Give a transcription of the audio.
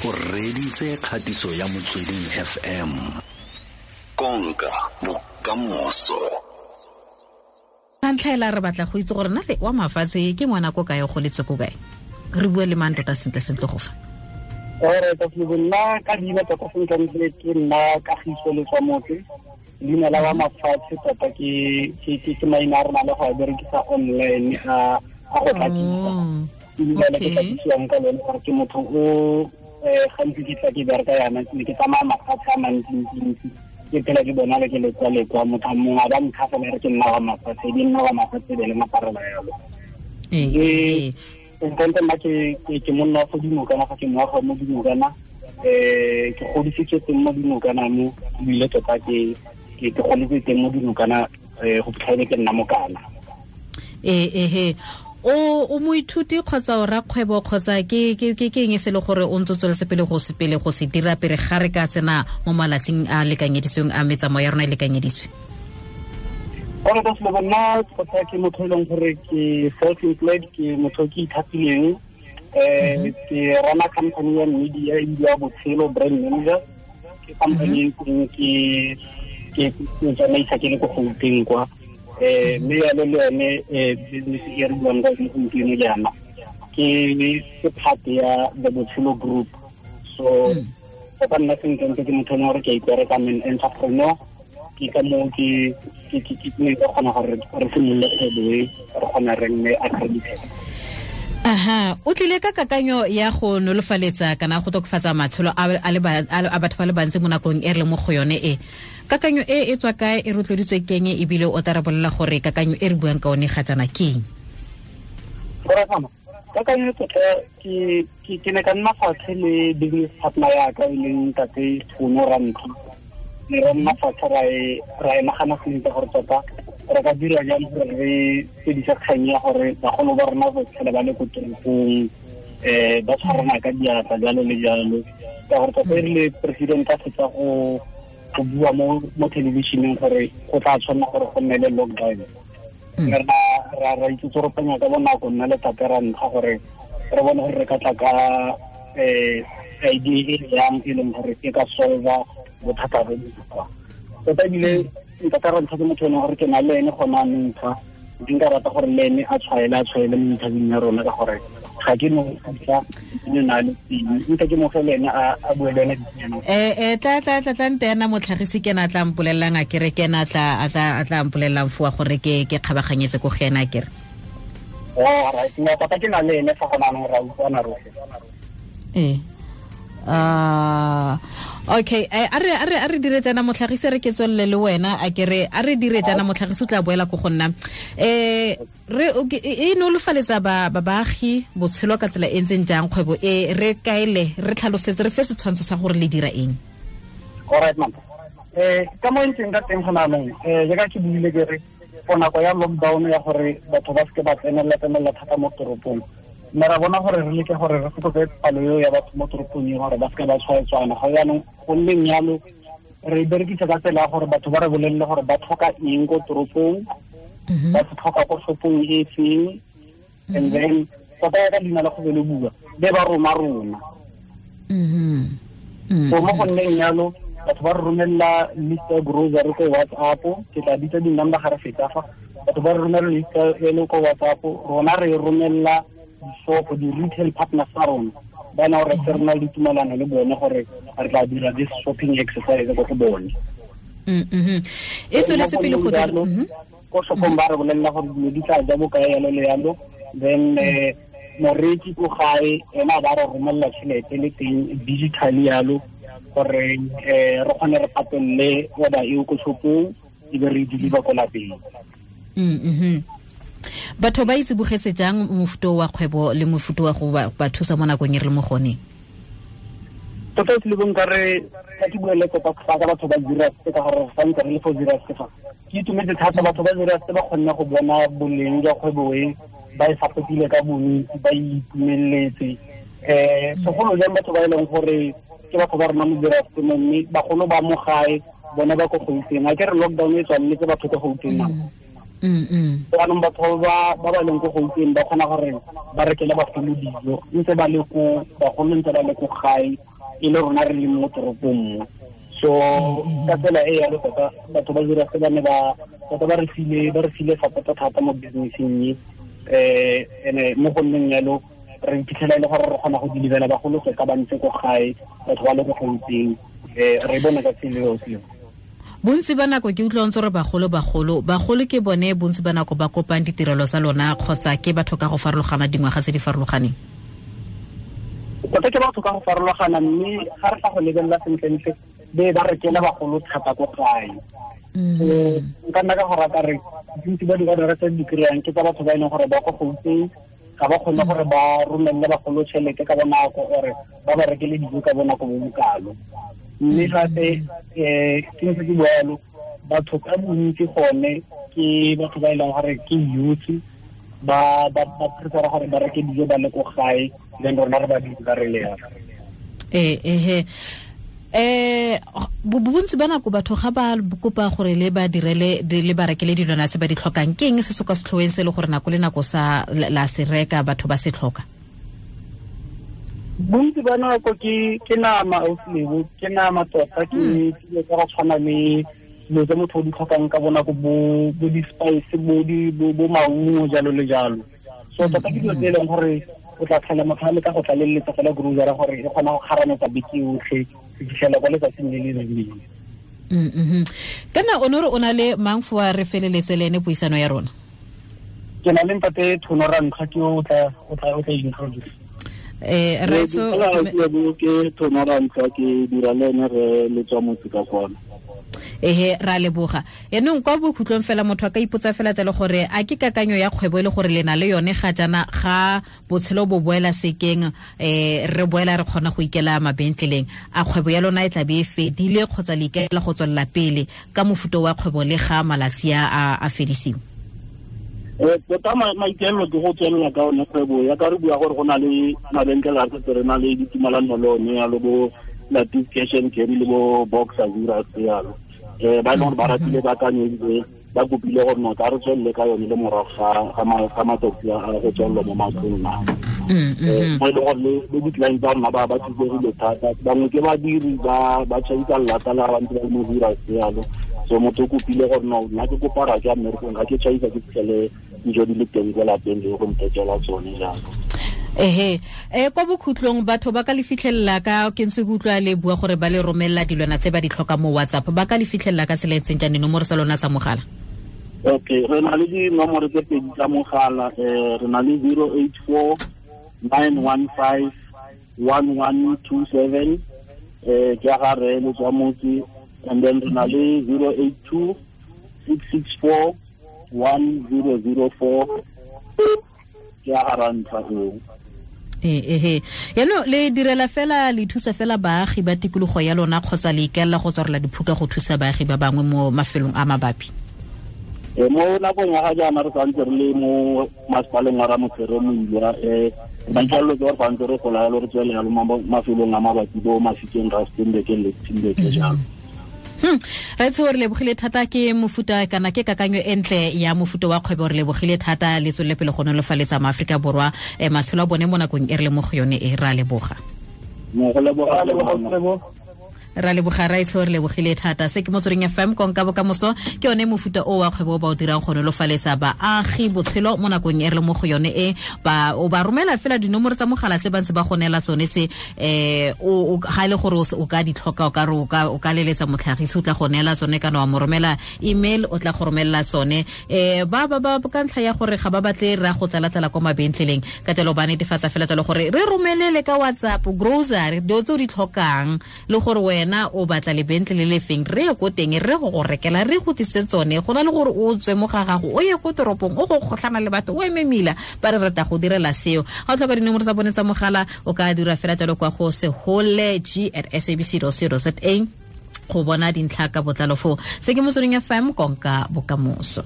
O reditse kgatiso ya Motsweding FM. Konka bokamoso. Ntlha re batla go itse gore na le wa mafatshe ke ngwana ko kae, o goletse ko kae, re bue le mang tota sentle sentle go fa. Ore tota nna ka leina tota sentle ke nna Kagiso Letswamotse. Leina la wa mafatshe tota ke maina a rona le go a berekisa online a go tlakisa. Ebile ke tlakisiwang ka lone gore ke motho o gantsi ke tla ke bereka yana, ne ke tsamaya mafatshe a mantsi-ntsi, ke phela ke bona le ke lekwa-lekwa, motho mongwe a ba ntlha fela re ke nna wa mafatshe, di nna wa mafatshe be le maparela yalo. Ntle nna ke monna wa fo Dinokana, fa ke moagi mo Dinokana, ke godisitswe teng mo Dinokana mo, ebile tota ke goletse teng mo Dinokana, go fitlha ke nna mokana. O moithuti kgotsa o rakgwebo kgotsa ke eng e se le gore o ntse o tsweletse pele go se pele go se dira pele ga re ka tsena mo malatsing a lekanyeditsweng a metsamao ya rona e lekanyeditswe? Ore ka selo nna tota ke motho e leng gore ke self-employed, ke motho ke ithapileng, ke rana company ya media e bidiwa Botshelo Brand Manager. Ke company e ke tsamaisa ke le ko Gauteng kwa. Mme yalo le yone business e re buang ka yone gompieno jaana ke part ya the Botshelo Group. So tota nna sentle ke motho e leng gore ke a ipereka, I'm an entrepreneur. Ke ka moo ke ne ka kgona gore re simolole kgwebo e, re kgona re nne accredited. Aha, o tlile ka kakanyo ya go nolofaletsa kana go tokafatsa matshelo a batho ba le bantsi mo nakong e re le mo go yone e. Kakanyo e e tswa kae, e rotloeditswe ke eng, ebile o tla re bolelela gore kakanyo e re buang ka one ga jaana ke eng? Kakanyo e tota ke ne ka nna fatshe le business partner ya ka e leng ntate Tsholo Rantlo. Ne ra nna fatshe ra e nagana sentle gore tota re ka dira jang gore re fedise kgang ya gore bagolo ba rona ba tlhole ba le ko toropong, ba tshwarana ka diatla jalo le jalo. Ka gore tota e rile president a fetsa go bua mo television-eng gore go tla tshwanela gore go nne le lockdown. Mme ra itsoropanya ka bonako nna le tate ra ntlha gore re bone gore re ka tla ka idea e yang e leng gore e ka solva bothata bo bo. Tota ebile ntate ra ntlha ke motho e leng gore ke na le ene gona anong fa, ke nka rata gore le ene a tshwaele mo interviewing ya rona ka gore ga ke no tla ne na le teng, nka ke mo fe le ene a bue le ene dinyana. Tla nte ena motlhagisi ke na tla mpolellang a kere ke na tla a tla mpolellang foa gore ke kgabaganyetse ko go ena a kere. Oh, right, no tota ke na le ene fa gona anong ra utlwana rotlhe. Okay, a re dire jaana motlhagisi, re ke tswelele le wena a kere, a re dire jaana motlhagisi o tla boela ko go nna. Re e nolofaletsa baagi botshelo ka tsela e ntseng jang kgwebo e, re kaele, re tlhalosetse, re fe setshwantsho sa gore le dira eng? All right, ma'am. Ka mo ntseng ka teng gona anong, jaaka ke buile ke re for nako ya lockdown ya gore batho ba seke ba tsenelela thata mo toropong, mme ra bona gore re leke gore re fokotse palo eo ya batho mo toropong e gore ba seke ba tshwaetswana. Ga jaanong go nneng jalo re berekisa ka tsela ya gore batho ba re bolelele gore ba tlhoka eng ko toropong, ba se tlhoka ko shopong e feng, and then tota ya ka leina la go be le bua be ba roma rona. So mo go nneng jalo batho ba re romelela list ya grocery ko WhatsApp, ke tla bitsa di-number ga re fetsa fa, batho ba re romelela list e le ko WhatsApp, rona re romelela di-shop, di-retail partners tsa rona, ba na gore re na le ditumelano le bone gore re tla dira this shopping exercise ko go bone. E tsweletse pele go dira ko shopong ba re bolelela gore dilo di tla ja bokae yalo le yalo, then moreki ko gae ena ba re romelela tšhelete le teng digitally yalo gore re kgone re patelele order eo ko shopong e be re deliver ko lapeng. Batho ba itse bogetse jang mofuta wa kgwebo le mofuta wa go ba thusa mo nakong e re le mo gone? Tota se le bong ka re ka ke buele tota fa ka batho ba Zeerust ka gore fa ntse re le fo Zeerust fa. Ke itumetse thata batho ba Zeerust ba kgonne go bona boleng jwa kgwebo e, ba e sapotile ka bontsi, ba itumeletse. Segolo jang batho ba e leng gore ke batho ba rona mo Zeerust mo, mme bagolo ba mo gae bone ba ko Gauteng. A ke re lockdown e tswaletse batho ko Gauteng nako. Jaanong batho ba ba leng ko Gauteng ba kgona gore ba rekele bagolo dijo ntse ba le ko, bagolo ntse ba le ko gae, e le rona re leng mo toropong mo. So ka tsela e yalo tota batho ba dira se ba ne ba tota ba re file support thata mo businesseng e ene mo go nneng yalo re iphitlhela e le gore re kgona go delivera bagolo tota ba ntse ko gae, batho ba le ko Gauteng, re bona ka tsela eo seo. Bontsi ba nako ke utlwa ntse re bagolo ke bone bontsi ba nako ba kopang ditirelo tsa lona kgotsa ke batho ka go farologana dingwaga tse di farologaneng? Tota ke batho ka go farologana, mme ga re fa go lebelela sentlentle be ba rekela bagolo thata ko gae. Nka nna ka go rata re bontsi ba di-order tse di kry-ang ke tsa batho ba e leng gore ba ko Gauteng, ga ba kgone gore ba romelele bagolo tšhelete ka bonako ore ba ba rekele dijo ka bonako bo bokalo. Mme gape ke ntse ke bua yalo, batho ka bontsi gone ke batho ba e leng gore ke youth, ba prefera gore ba reke dijo ba le ko gae, then rona re ba di re le yalo. Bontsi ba nako batho ga ba kopa gore le ba direle le ba rekele dilwana tse ba di tlhokang, ke eng se se kwa setlhoeng se le gore nako le nako sa la se reka batho ba se tlhoka? Bontsi ba nako ke nama ausilebo, ke nama tota, ke dilo tsa go tshwana le dilo tse motho o di tlhokang ka bonako, bo di-spice, bo maungo jalo le jalo. So tota ke dilo tse e leng gore o tla tlhela motho a leka go tlaleletsa fela grocery gore e kgona go kgarametsa beke yotlhe go fitlhela kwa letsatsing le le rileng. Kana o ne o na le mang fo re feleletse le ene puisano ya rona? Ke na le ntate Thono Rantlha, ke o tla introduce. Raitso ke Thono Rantlha, ke dira le ene re le tswa motse ka kwana. Ehe, ra leboga. Yaanong kwa bokhutlong fela motho a ka ipotsa fela jalo gore a ke kakanyo ya kgwebo e le gore le na le yone ga jaana ga botshelo bo boela sekeng, re boela re kgona go ikela mabentleleng, a kgwebo ya lona e tla be e fedile kgotsa le ikaela go tswelela pele ka mofuta wa kgwebo le ga malatsi a fedisiwe? Tota maikaelelo ke go tswelela ka one kgwebo ya ka re bua gore go na le mabenkele a setse re na le ditumalano le one yalo, bo Latif Cash and Carry le bo Boxer Zura yalo. Ba e leng gore ba ratile kakanyo ebile ba kopile gore no tla re tswelele ka yone le morago ga matsatsi a go tswelelwa mo matlong a. Mo e leng gore le di-client tsa rona ba thusegile thata, bangwe ke badiri ba tšhaisa lelata la ba ntse ba le mo Zura yalo. So motho o kopile gore no nna ke kopa ra ke mmerekong ga ke tšhaisa ke fitlhele dijo di le teng ko lapeng le go nthekela tsone jalo. Ehe, kwa bokhutlong batho ba ka le fitlhelela ka ke ntse ke utlwa le bua gore ba le romelela dilwana tse ba di tlhoka mo WhatsApp, ba ka le fitlhelela ka tsela e ntseng jang dinomoro tsa lona tsa mogala? Okay, re na le dinomoro tse pedi tsa mogala, re na le 084 915 1127, ke ya ga re le tswa motse, and then re na le 082 664 1004, ke ya ga Rantlha eo. Ehe, yaanong le direla fela le thusa fela baagi ba tikologo ya lona kgotsa le ikaelela go tswarela diphuka go thusa baagi ba bangwe mo mafelong a mabapi? Mo nakong ya ga jaana re santse re le mo masepaleng wa Ramotshere Moilwa, maikaelelo ke gore santse re gola yalo re tswele yalo mafelong a mabapi bo Mafikeng, Rustenburg le Timbeke jalo. Raitso re lebogile thata, ke mofuta kana ke kakanyo e ntle ya mofuta wa kgwebo, re lebogile thata le tswelele pele go nolofaletsa maAforika Borwa matshelo a bone mo nakong e re le mo go yone e. Ra leboga. Ra leboga Raitso, re lebogile thata. Se ke Motsweding FM, konka bokamoso ke yone mofuta o wa kgwebo ba o dirang go nolofaletsa baagi botshelo mo nakong e re le mo go yone e. Ba o ba romela fela dinomoro tsa mogala tse ba ntse ba go neela tsone se, o ga ile gore o ka di tlhoka, o ka re o ka leletsa motlhagisi o tla go neela tsone, kana wa mo romela email o tla go romela tsone. Ba ba ka ntlha ya gore ga ba batle ra go tlalatlela kwa mabentleleng, ka jalo ba netefatsa fela jalo gore re romelele ka WhatsApp grocery dilo tse o di tlhokang le gore wena o batla lebentlele le feng, re ye ko teng re go go rekela re go tlise tsone, go na le gore o tswe mo ga gago o ye ko toropong o go kgotlhana le batho o eme mila, ba re rata go direla seo. Ga o tlhoka dinomoro tsa bone tsa mogala o ka dira fela jalo kwa go seholeg@sabc.co.za go bona dintlha ka botlalo foo. Se ke Motsweding FM, konka bokamoso.